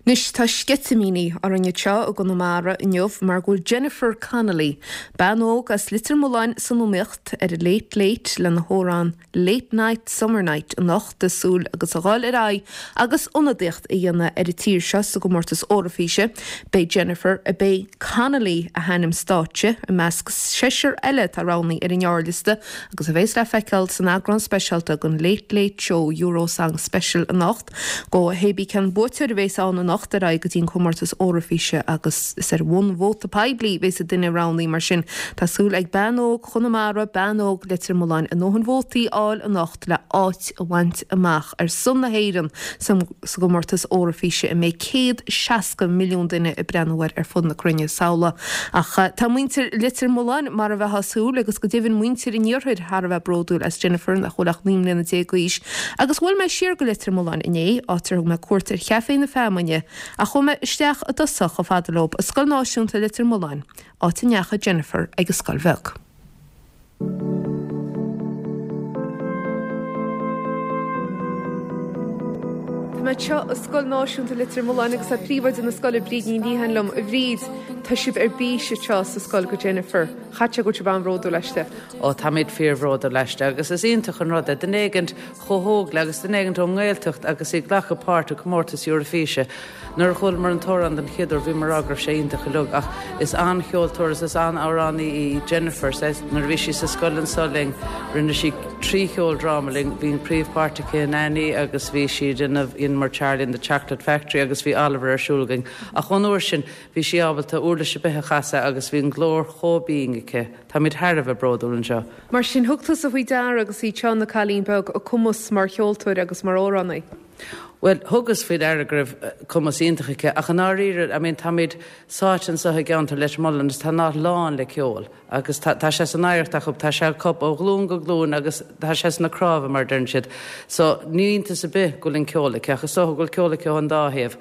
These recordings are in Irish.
Anois tá sceitimíní orainn anseo i gConamara inniu mar go bhfuil Jennifer Connolly, bean óg as Leitir Mealláin san iomaíocht ar an Late Late lena hamhrán Late Night Summer Night anocht ag súil agus a dhul ar aghaidh agus ionadaíocht a dhéanamh ar an tír seo sa gcomórtas Eoraifíse. Beidh Jennifer, a b'é Connolly a hainm stáitse, i measc seisear eile atá roghnaithe ar an ngearrliosta agus a bheas le feiceáil san eagrán speisialta den Late Late Show Eurosong Special anocht. Go hébí cén buaiteoir a bheas ann anocht ar aghaidh go dtí an comórtas Eoraifíse agus is ar bhonn vóta poiblí a bheas an duine roghnaithe mar sin tá súil ag bean óg Chonamara, bean óg Leitir Mealláin a ndóthain vótaí a fháil anocht le áit a bhaint amach ar son na hÉireann sa gcomórtas Eoraifíse a mbeidh 160 milliún duine ag breathnú air ar fud na cruinne samhlaigh. Ach tá muintir Leitir Mealláin mar a bheifeá ag súil agus go deimhin muintir an iarthair thar a bheith bródúil as Jennifer nach bhfuil ach 19 mbliana d'aois Agus bhuail mé siar go Leitir Mealláin inné, áit ar thug mé cuairt ar Chaifé na Feamainne, ach chuaigh mé isteach i dtosach chomh fada leo i Scoil Náisiúnta Leitir Mealláin, áit a ndeachaigh Jennifer ag an scoil bheag. Tá mé anseo i Scoil Náisiúnta Leitir Mealláin agus tá príomhoide na scoile, Bríd Ní Liatháin liom. A Bhríd, tá sibh ar bís anseo sa scoil go Jennifer. Chaithfeadh sé go bhfuil sibh an-bhródúil aisti. Ó, táimid fíorbhródúil aisti agus is iontach an rud é duine éigint chomh hóg léi agus duine éigint ón nGaeltacht agus í ag glacadh páirt i gcomórtas Eurofíse. Nuair a chualamar an t-amhrán den chéad uair bhíomar ag rá go raibh sé iontach uilig ach is an-cheoltóir is is an-amhránaí í Jennifer. Nuair a bhí sí sa scoil anseo linn rinne sí trí cheoldráma linn, bhí an príomhpháirt aici in Annie agus bhí sí ag déanamh dheineamar Charlie and the Chocolate Factory agus bhí Oliver ar siúl againn ach ón uair sin bhí sí ábalta uirlis ar bith a chasadh agus bhí an glór chomh binn aici. Táimid thar a bheith bródúil anseo. Mar sin, thug tusa faoi deara agus í anseo ina cailín beag, a cumas mar cheoltóir agus mar amhránaí? Bhuel, thugas faoi deara go raibh cumas iontach aici, ach i ndáiríre, I mean, táimid sáite anseo i gceantar Leitir Mealláin agus tá an áit lán le ceol agus tá, tá sé san oidhreacht acu, tá sé acu ó ghlúin go glúin agus tá sé sna cnámha, mar a deireann siad. So, ní iontas ar bith go bhfuil an ceol aici, ach is dócha go bhfuil ceol aici ón dá thaobh.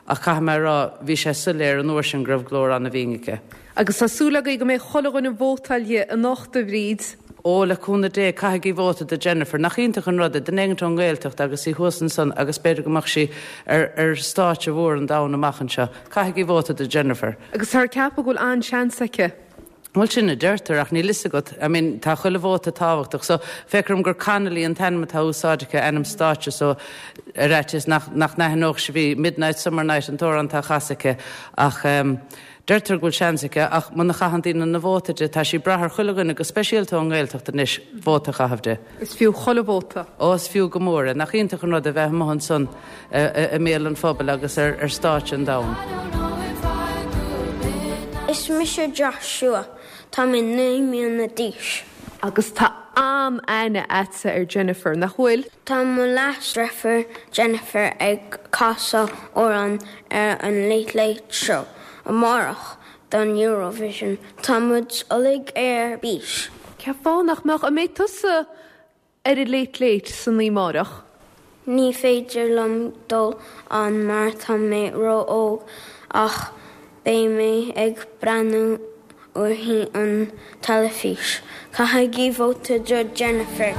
Ach caithfidh mé a rá, bhí sé soiléir an uair sin go raibh glór an-bhinn aici. Agus tá súil agaibh go mbeidh chuile dhuine ag vótáil di anocht, a Bhríd. Ó, le cúnamh Dé, caithigí vóta do Jennifer. Nach iontach an rud é, duine éigint ón nGaeltacht agus í thuas ansan agus b'fhéidir go mbeadh sí ar ar stáitse mhór an domhain amach anseo. Caithigí vóta do Jennifer. Agus táthar ag ceapadh go bhfuil an-seans aici. Bhuel, sin a deirtear, ach níl fhios agat. I mean, tá chuile vóta tábhachtach. So, féach orm gur Connolly an t-ainm atá úsáidte aici, ainm stáitse, so ar fhaitíos nach nach n-aithneodh sibh í. Midnight Summer Night an t-amhrán atá á chasadh aici. Ach ehm. Deirtear go bhfuil seans aici, ach muna chaitheann daoine na vóta di, tá sí ag brath ar chuile dhuine, go speisialta ón nGaeltacht anois, vóta a chaitheamh di. Is fiú chuile vóta. Ó, is fiú go mór é. Nach iontach an rud é bheith amuigh ansan i mbéal an phobail agus ar stáitse an domhain. Is mise Joshua. Tá mé 9 mbliana d'aois. Agus tá an-aithne a'dsa ar Jennifer, nach bhfuil? Tá mo leasdeirfiúr Jennifer ag casadh amhrán ar an Late Late Show amárach don Eurovision. Tá muid uilig ar bís. Cén fáth nach mbeadh? An mbeidh tusa ar an Late Late san oíche amárach? Ní féidir liom dul ann mar tá mé ró-óg ach beidh mé ag breathnú uirthi an teilifís. Caithigí vóta do Jennifer!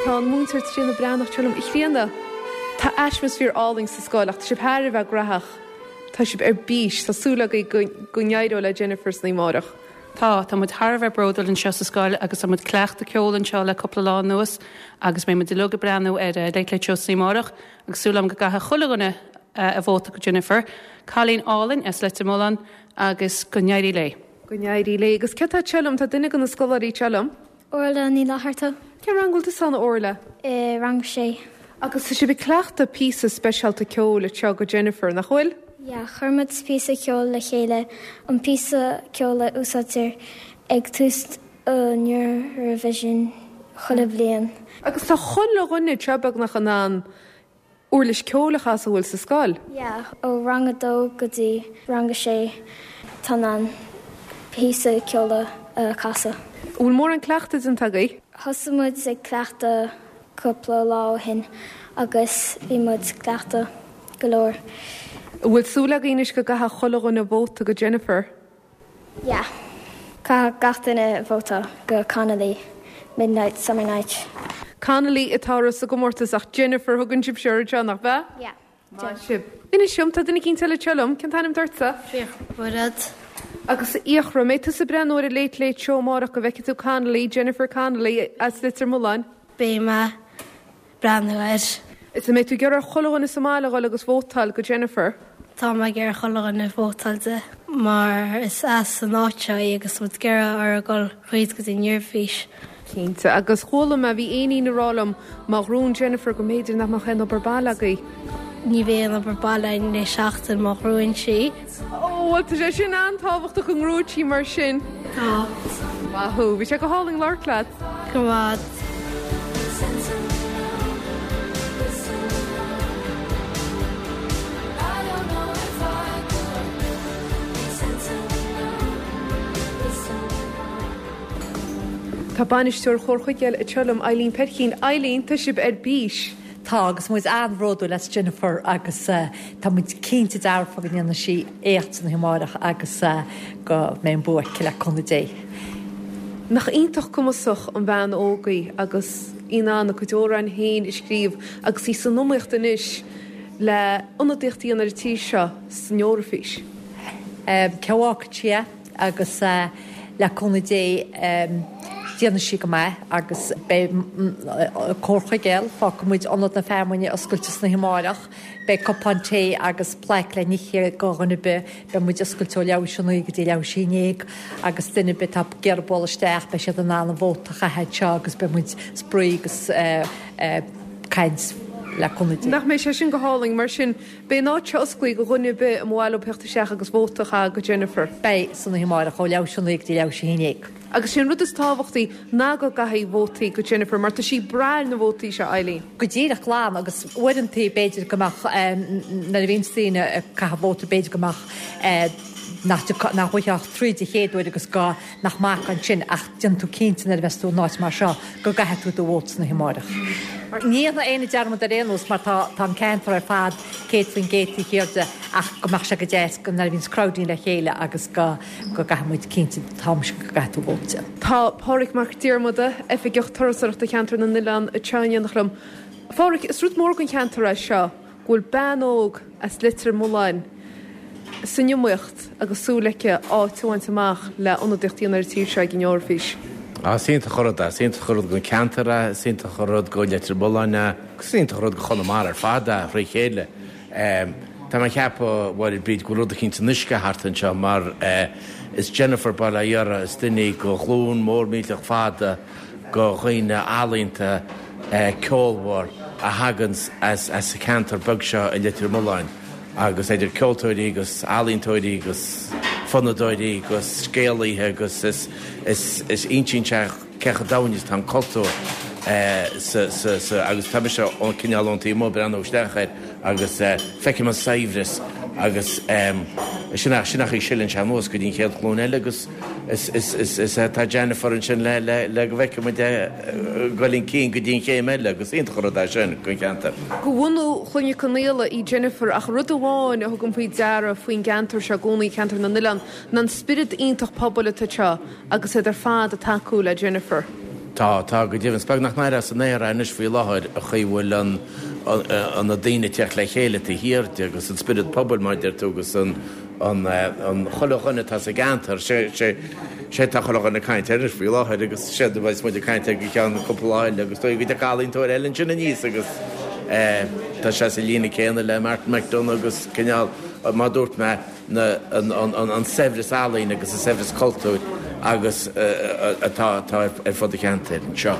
Tá an múinteoir Tríona Breathnach anseo liom. A Thríona, tá atmaisféar álainn sa scoil ach tá sibh thar a bheith graitheach. Tá sibh ar bís. Tá súil agaibh go go n-éireoidh le Jennifer san oíche amárach. Tá, tá muid thar a bheith bródúil anseo sa scoil agus tá muid ag cleachtadh ceoil anseo le cúpla lá anuas agus beidh muid uilig ag breathnú ar Late Late Show san oíche amárach agus súil agam go gcaithfidh chuile dhuine. a vóta go Jennifer. Cailín álainn as Leitir Mealláin agus go n-éirí léi. Go n-éirí léi. Agus cé atá anseo liom? Tá duine de na scoláirí anseo liom. Orla Ní Fhlatharta. Cén rang a bhfuil tusa ann, a Orla? I rang a sé. Agus tá sibh ag cleachtadh píosa speisialta ceoil anseo go Jennifer, nach bhfuil? Yeah, chuir muid píosa ceoil le chéile, an píosa ceoil a úsáidtear ag tús an Eurovision chuile bhliain. Agus tá chuile dhuine anseo beagnach in ann uirlis ceoil a chasadh a bhfuil sa scoil. Yeah, ó rang a dó go dtí rang a sé tá in ann píosa ceoil a chasadh. An bhfuil mórán cleachtaidh déanta agaibh? Thosaigh muid ag cleachtadh cúpla lá ó shin agus bhí muid ag cleachtadh go leor. An bhfuil súil agaibh anois go gcaithfidh chuile dhuine vóta go Jennifer? Yeah. Caithfidh gach duine vóta go Connolly, Midnight Summer Night. Connolly atá sa gcomórtas ach Jennifer thugann sibhse uirthi anseo, nach ea? Yeah. Maith sibh. Inis dom, tá duine eicínt eile anseo liom, cén t-ainm duitse? Fiachra Bairéad. Agus a Fhiachra, an mbeidh tusa ag breathnú ar an Late Late Show amárach go bhfeicfidh tú Connolly, Jennifer Connolly as Leitir Mealláin? Beidh mé. breathnú air. Is an mbeidh tú ag iarraidh ar chuile dhuine sa mbaile a dhul agus vótáil go Jennifer? Tá mé ag iarraidh chuile dhuine vótáil di mar is as an áit seo í agus tá muid ag iarraidh uirthi a dhul thríd go dtí an Eoraifís. Cinnte. Agus chuala mé, bhí éinín ag rá liom, má ghnóthaíonn Jennifer go mb'fhéidir nach mbeadh aon obair baile agaibh. Ní bheidh aon obair baile againn le seachtain má ghnóthaíonn sí. Ó, bhuel tá sé sin an-tábhachtach go ngnóthóidh sí mar sin. Tá. Maith thú. Bhí sé go hálainn labhairt leat. Go raibh. Tá bainisteoir Chór Chuigéil anseo liom, Eileen Peircín. Eileen, tá sibh ar bís! Tá, agus muid an-bhródúil as Jennifer agus tá muid cinnte dearfa go ndéanfaidh sí éacht san oíche amárach agus go mbeidh an bua aici le cúnamh Dé. Nach iontach cumasach an bhean óg í agus í in ann a cuid amhráin féin a scríobh agus í san iomaíocht anois le ionadaíocht a dhéanamh ar an tír seo san Eoraifís. Cé a fhágfaidh sí é? Agus le cúnamh Dé déanfaidh sí go maith agus beidh Cór Chuigéil, fágfaidh muid Ionad na Feamainne oscailte san oíche amárach, beidh cupán tae agus plaic le n-ithe go dhuine ar bith, beidh muid oscailte ó leathuair théis a naoi go dtí leathuair théis a haon déag agus duine ar bith atá ag iarraidh bualadh isteach beidh siad in ann a vóta a chaitheamh anseo agus beidh muid spraoi agus caint le cúnamh Dé. Nach mbeidh sé sin go hálainn mar sin Beidh an áit seo osclaithe go dhuine ar bith a mba mhaith leo theacht isteach agus vóta a chaitheamh go Jennifer. Beidh, san oíche amárach ó leathuair théis a naoi go dtí leathuair théis a haon déag. Agus sé an rud is tábhachtaí ná go gcaithfí vótaí go Jennifer mar tá sí ag brath ar na vótaí seo, Eileen. Go díreach glan agus uaireantaí b'fhéidir go mbeadh nuair a bhíonns daoine ag caitheamh vóta b'fhéidir go mbeadh nach nach bhfaighfeá ach tríd an chéad uair agus go nach maith ansin ach déanfaidh tú cinnte nuair a bheas tú in áit mar seo go gcaithfidh tú do vóta san oíche amárach. Ní dhéanfaidh éinne dearmad ar aon nós mar tá tá an ceantar ar fad 100% taobh thiar de ach go mbeadh sé go deas go nuair a bhíonns crowdín le chéile agus go go gcaithfidh muid cinnte tá mise go gcaithfidh tú vóta. Tá Pádhraic Mac Diarmada, Oifigeach Turasóireachta Cheantar na nOileán anseo in éineacht liom. A Phádhraic, is rud mór don cheantar é seo go bhfuil bean óg as Leitir Mealláin san iomaíocht agus súil aici áit a bhaint amach le ionadaíocht a dhéanamh ar an tír seo ag an Eoraifís. Á, is iontach an rud é. Is iontach an rud don cheantar é, is iontach an rud go Leitir Mealláin é, agus is iontach an rud go Chonamara ar fad é, thrí chéile. Tá mé ag ceapadh, a Mháire Bríd, go bhfuil rud eicínt san uisce thart anseo mar is Jennifer bail ó Dhia uirthi, is duine í go ghlúin mór millteach fada go dhaoine ealaíonta ceolmhar a thaganns as an cheantar beag seo i Leitir Mealláin agus idir ceoltóirí agus ealaíontóirí agus fonnadóirí agus scéalaithe agus is is insíonn sé cé chomh domhain is atá an cultúr sa sa sa agus tá mise cineál ón taobh amuigh ag breathnú isteach air agus feicim an saibhreas agus sin sin an chaoi a sileann sé anuas go dtí an chéad ghlúin eile agus Is tá Jennifer ansin le le go bhfeicfidh muid é ag dul chun cinn go dtí an chéim eile agus iontach an rud é sin don cheantar. De bhunú Chloinne Conaola í Jennifer ach rud amháin a thugaim faoi deara faoin gceantar seo i gcónaí, ceantar na nOileán, ná an spiorad iontach pobail atá anseo agus iad ar fad ag tacú le Jennifer. Tá, tá, go deimhin. Is beag nach n-aire as an aer é anois faoi láthair an chaoi a bhfuil an an na daoine ag teacht le chéile taobh thiar de agus an spiorad pobail mar a deir tú agus an an chuile dhuine atá sa gceantar, sé sé tá chuile dhuine ag caint air anois faoi láthair agus séard a bheas muid ag caint air go ceann cúpla lá eile agus dóigh go dtiocfaidh ealaíontóir eile ansin aníos agus. Tá sé sa líne céanna le Martin McDonagh agus cineál, mar a dúirt mé, na, an saibhreas ealaíne agus an saibhreas cultúir agus atá ar fud an cheantair anseo.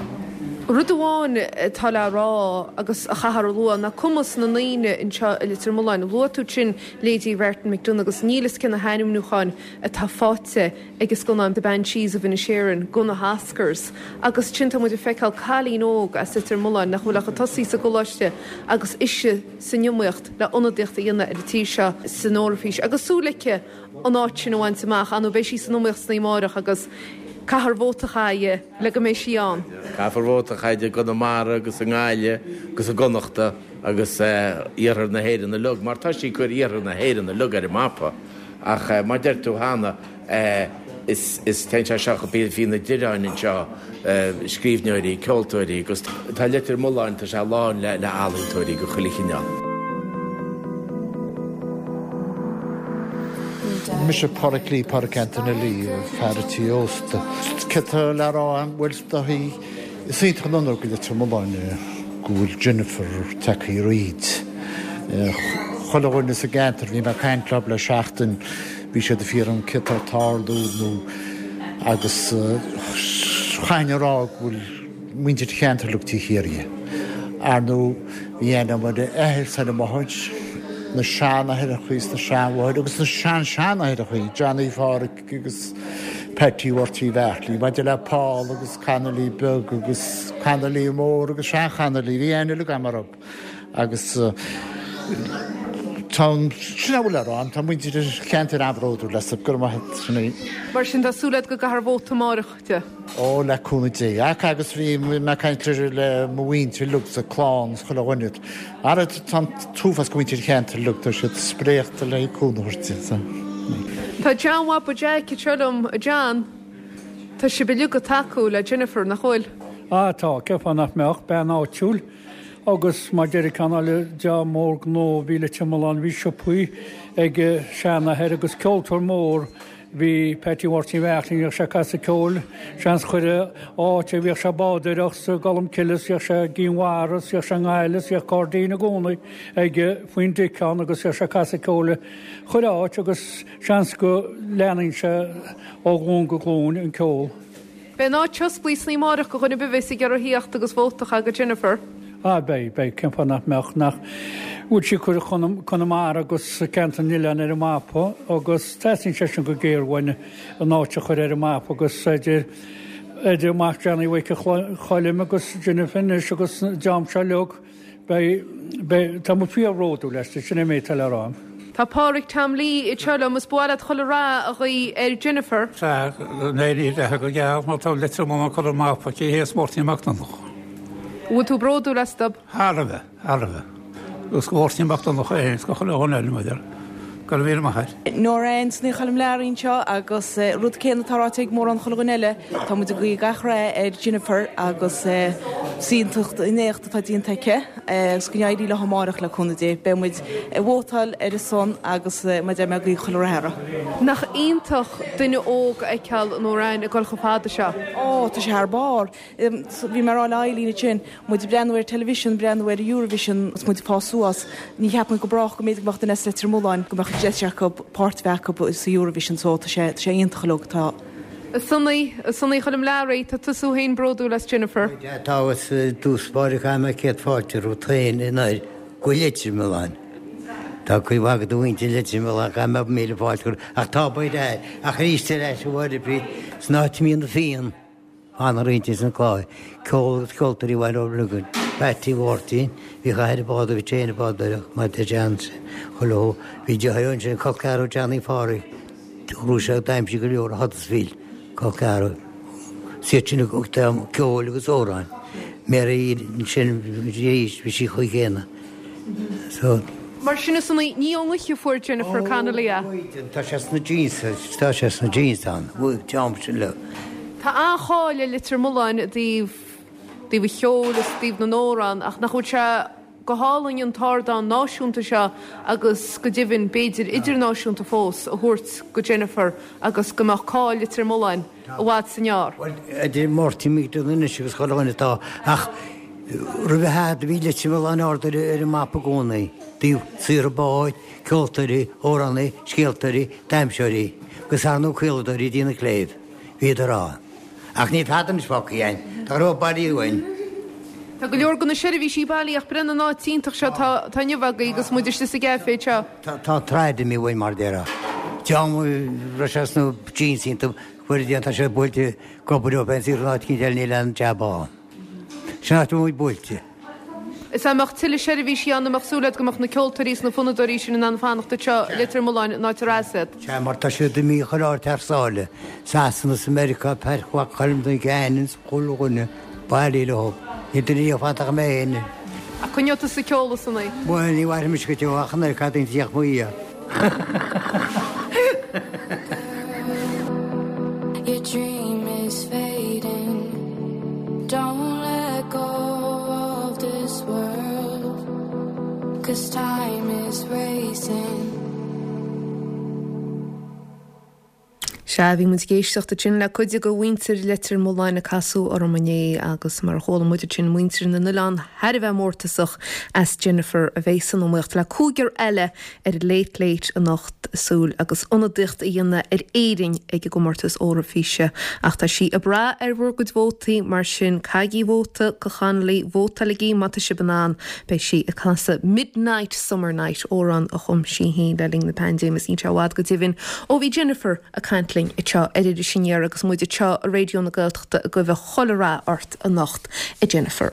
Rud amháin atá le rá agus a chaithfear a lua ná cumas na ndaoine anseo i Leitir Mealláin. Luaigh tú ansin leithéidí Mhartin McDonagh agus níl fhios cé na hainmniúcháin atá faighte ag an scannán The Banshees of Inisherin go na hOscars agus ansin tá muid ag feiceáil cailín óg as Leitir Mealláin nach bhfuil ach ag tosaí sa gcoláiste agus ise san iomaíocht le ionadaíocht a dhéanamh ar an tír seo san Eoraifís agus súil aici an áit sin a bhaint amach. Ar ndóigh beidh sí san iomaíocht san oíche amárach agus caithfear vóta a chaitheamh le go mbeidh sí ann. Caithfear vóta a chaitheamh i gConamara agus i nGaillimh agus i gConnachta agus iarthar na hÉireann uilig mar tá sí ag cur iarthar na hÉireann uilig ar an mapa ach mar a deir tú cheana is téann sé seo go bhí na Direáin anseo, scríbhneoirí, ceoltóirí agus tá Leitir Mealláin, tá sé lán le ealaíontóirí de chuile chineál. Mise Pádraic Lee, Pádraic Antaine Lee, fear an tí ósta. Céard tá le rá agam? Bhuel, is dóichí, is iontach an onóir go Leitir Mealláin go bhfuil Jennifer tagtha thríd. Chuile dhuine sa gceantar, bhí mé ag caint leo le seachtain, Bhí siad ag fiafraí céard tá ag tarlú nó agus chaithfinn a rá go bhfuil muintir an cheantair uilig taobh thiar dhi. Ar ndóigh bhí aithne agam ar a athair is ar a máthair, na seanathaireachaí is na seanmháthair agus na sean-seanathaireachaí, Johnny Pháraic agus Patsy Mháirtín Bheartlaí, maidir le Paul agus Connolly beag agus Connolly mór agus sean-Chonnolly, bhí aithne uilig agam orthu. Agus tá an, sin a bhfuil le rá, tá muintir an cheantair an-bhródúil as, go raibh maith agat, sin í. Mar sin, tá súil agat go gcaithfear vóta amárach di? Ó, le cúnamh Dé. Ach agus bhí mé ag caint le mo mhuintir uilig sa clann is chuile dhuine. Ara tá an t-uafás go muintir an cheantair uilig, tá siad spréachta le cúnamh a thabhairt di. So. Tá John Bhaba Jeaic anseo liom, a John, tá sibh uilig ag tacú le Jennifer, nach bhfuil? Á tá, cén fáth nach mbeadh, bean áitiúil. Agus mar deir ceann eile dream mór gnó a bhí i Leitir Mealláin, bhí siopaí ag a seanathair agus ceoltóir mór bhí Patsy Mháirtín Bheartlaí, bhíodh sé ag casadh ceoil, seans chuile áit a bhíodh sé ag bádóireacht sa gColmcille is bhíodh sé i gCinn Mhara is bhíodh sé i nGaillimh is bhíodh gairdín i gcónaí aige faoin dtic ann agus bhíodh sé ag casadh ceoil chuile áit agus seans go leanann sé ó ghlúin go glúin an ceol. Beidh an áit oscailte san oíche amárach go dhuine ar bith a bheas ag iarraidh theacht agus vóta a chaitheamh go Jennifer. Ah beidh, beidh, cén fáth nach mbeadh, nach bhfuil sí ag cur Conamara agus ceantar na n-oileán ar an mapa agus teastaíonn sé sin go géar uainn an áit a chur ar an mapa agus idir, idir mac Johnny Mhic Choilm agus Jennifer anois agus an dream seo uilig. Beidh, beidh, tá muid fíor-bhródúil aisti, sin é an méid atá le rá. Tá Pádraig Tom Lee anseo liom, is ba mhaith leat chuile rath a ghuí ar Jennifer. Sea, go n-éirí léi go geal má tá Leitir Mealláin curtha ar an mapa aici théis Mháirtín Mac Donncha. An bhfuil tú bródúil astu? Thar a bheith, thar a bheith. Agus go Mháirtín Mac Donncha féin is go chuile dhuine eile, maidir. Go raibh míle maith agat. Nora Anne Ní Choilm Learaí anseo agus rud céanna atá ráite ag mórán chuile dhuine eile, tá muid ag guí gach rath ar Jennifer agus is iontach an éacht atá déanta aici agus go n-éirí léi amárach le cúnamh Dé. Beidh muid ag vótáil ar a son agus mar a deir mé ag guí chuile rath uirthi. Nach iontach duine óg a fheiceáil Nora Anne ag dul chomh fada seo. Ó, tá sé thar barr. Bhí mé ag rá le Eileen ansin, muid ag breathnú ar television, breathnú ar Eurovision agus muid ag fás suas, ní cheap muid go brách go mb'fhéidir go mbeadh duine as Leitir Mealláin, go mbeadh deis acu páirt a bheith acu sa Eurovision so tá sé, tá sé iontach uilig, tá. A Sonaí, a Sonaí Choilm Learaí, tá tusa féin bródúil as Jennifer. Tá agus i dtús báire caithfidh mé céad fáilte romhat féin anoir go Leitir Mealláin. Tá cuid mhaith de mhuintir Leitir Mealláin, caithfidh mé míle fáilte a chur, ach tá baol air, ach arís ar ais a Mháire Bríd, san áit a mbíonn na Fianna. Ana roinnt ins an clár, ceol agus ceoltóirí Bhaile Ó Liogáin, Patsy Mháirtín, bhíodh a athair ag bádú, bhí sé féin ag bádóireacht, mar deir John chuile shó, bhí deartháir ansin, col ceathrar Johnny Phádraig, ghnóthaigh sé d'aimsigh go leor i Huddersfield, col ceathrar, is iad sin a thug ceoil agus amhráin, Mary ansin arís, bhí sí chomh céanna. So. Mar sin a Sonaí, ní ón ngaoth a fuair Jennifer Connolly é. Tá sé sna genes, tá sé sna genes ann, bhuaigh Tom sin leo. Tá an-cháil ar Leitir Mealláin i dtaobh, dtaobh an cheoil is i dtaobh na n-amhrán ach nach bhfuil sé go hálainn an t-ardán náisiúnta seo agus go deimhin b'fhéidir idirnáisiúnta fós a thabhairt go Jennifer agus go mbeadh cáil Leitir Mealláin i bhfad is i ngearr. Bhuel, idir Máirtín McDonagh anois agus chuile dhuine atá ach. Roimhe fhada bhí Leitir Mealláin ard ar an mapa i gcónaí, dtaobh saothar báid, ceoltóirí, amhránaí, scéaltóirí, damhsóirí, agus ar ndóigh caoladóirí ag déanamh cléibh. Bhíodar ann. Ach níl tada anois fágtha againn. Tá go leor bailithe uainn. Tá go leor de na seirbhísí bailithe ach breathnaigh an áit iontach seo atá inniu agaibh agus muid istigh sa gcaifé anseo. Tá an tsráid imithe uainn mar a déarfá. Dream a raibh sé sna jeans iontu, fuair déanta sé buailte ag obair leo féin saor in áit eicínt eile níl aon jab ann. Sin áit a bhfuil muid buailte. Is dá mbeadh tuilleadh seirbhísí ann, an mbeadh súil agat go mbeadh na ceoltóirí is na fonnadóirí sin in ann fanacht anseo i Leitir Mealláin an áit ar as iad? Sea, mar tá siad imithe chuile áit thar sáile, Sasana is Meiriceá, Pairc Mhac Choilm don Cheann is chuile dhuine bailithe leo. Níl duine riamh fanta ach mé féin. Ach coinneoidh tusa ceol ansan í. Bhuel, ní mhairfidh mise go deo ach an oiread caid a d'fhéach mo fhia. Your dream is fading Don't let go of this world Cause time is racing. Sea, bhí muid ag éisteacht ansin le cuid de mhuintir Leitir Mealláin ag casadh orm inné agus mar a chuala muid ansin muintir na n-oileán thar a bheith mórtasach as Jennifer a bheidh san iomaíocht le cúigear eile ar an Late Late anocht súil agus ionadaíocht a dhéanamh ar Éirinn ag an gcomórtas Eoraifíse. Ach tá sí ag brath ar bhur gcuid vótaí, mar sin caithigí vóta go Connolly, vótáiligí má tá sibh in ann. Beidh sí ag casadh Midnight Summer Night, amhrán a chum sí féin le linn na paindéime is níl sé i bhfad go deimhin ó bhí Jennifer ag caint linn anseo ar Iris Aniar agus muid anseo i Raidió na Gaeltachta ag guí chuile rath ort anocht, a Jennifer.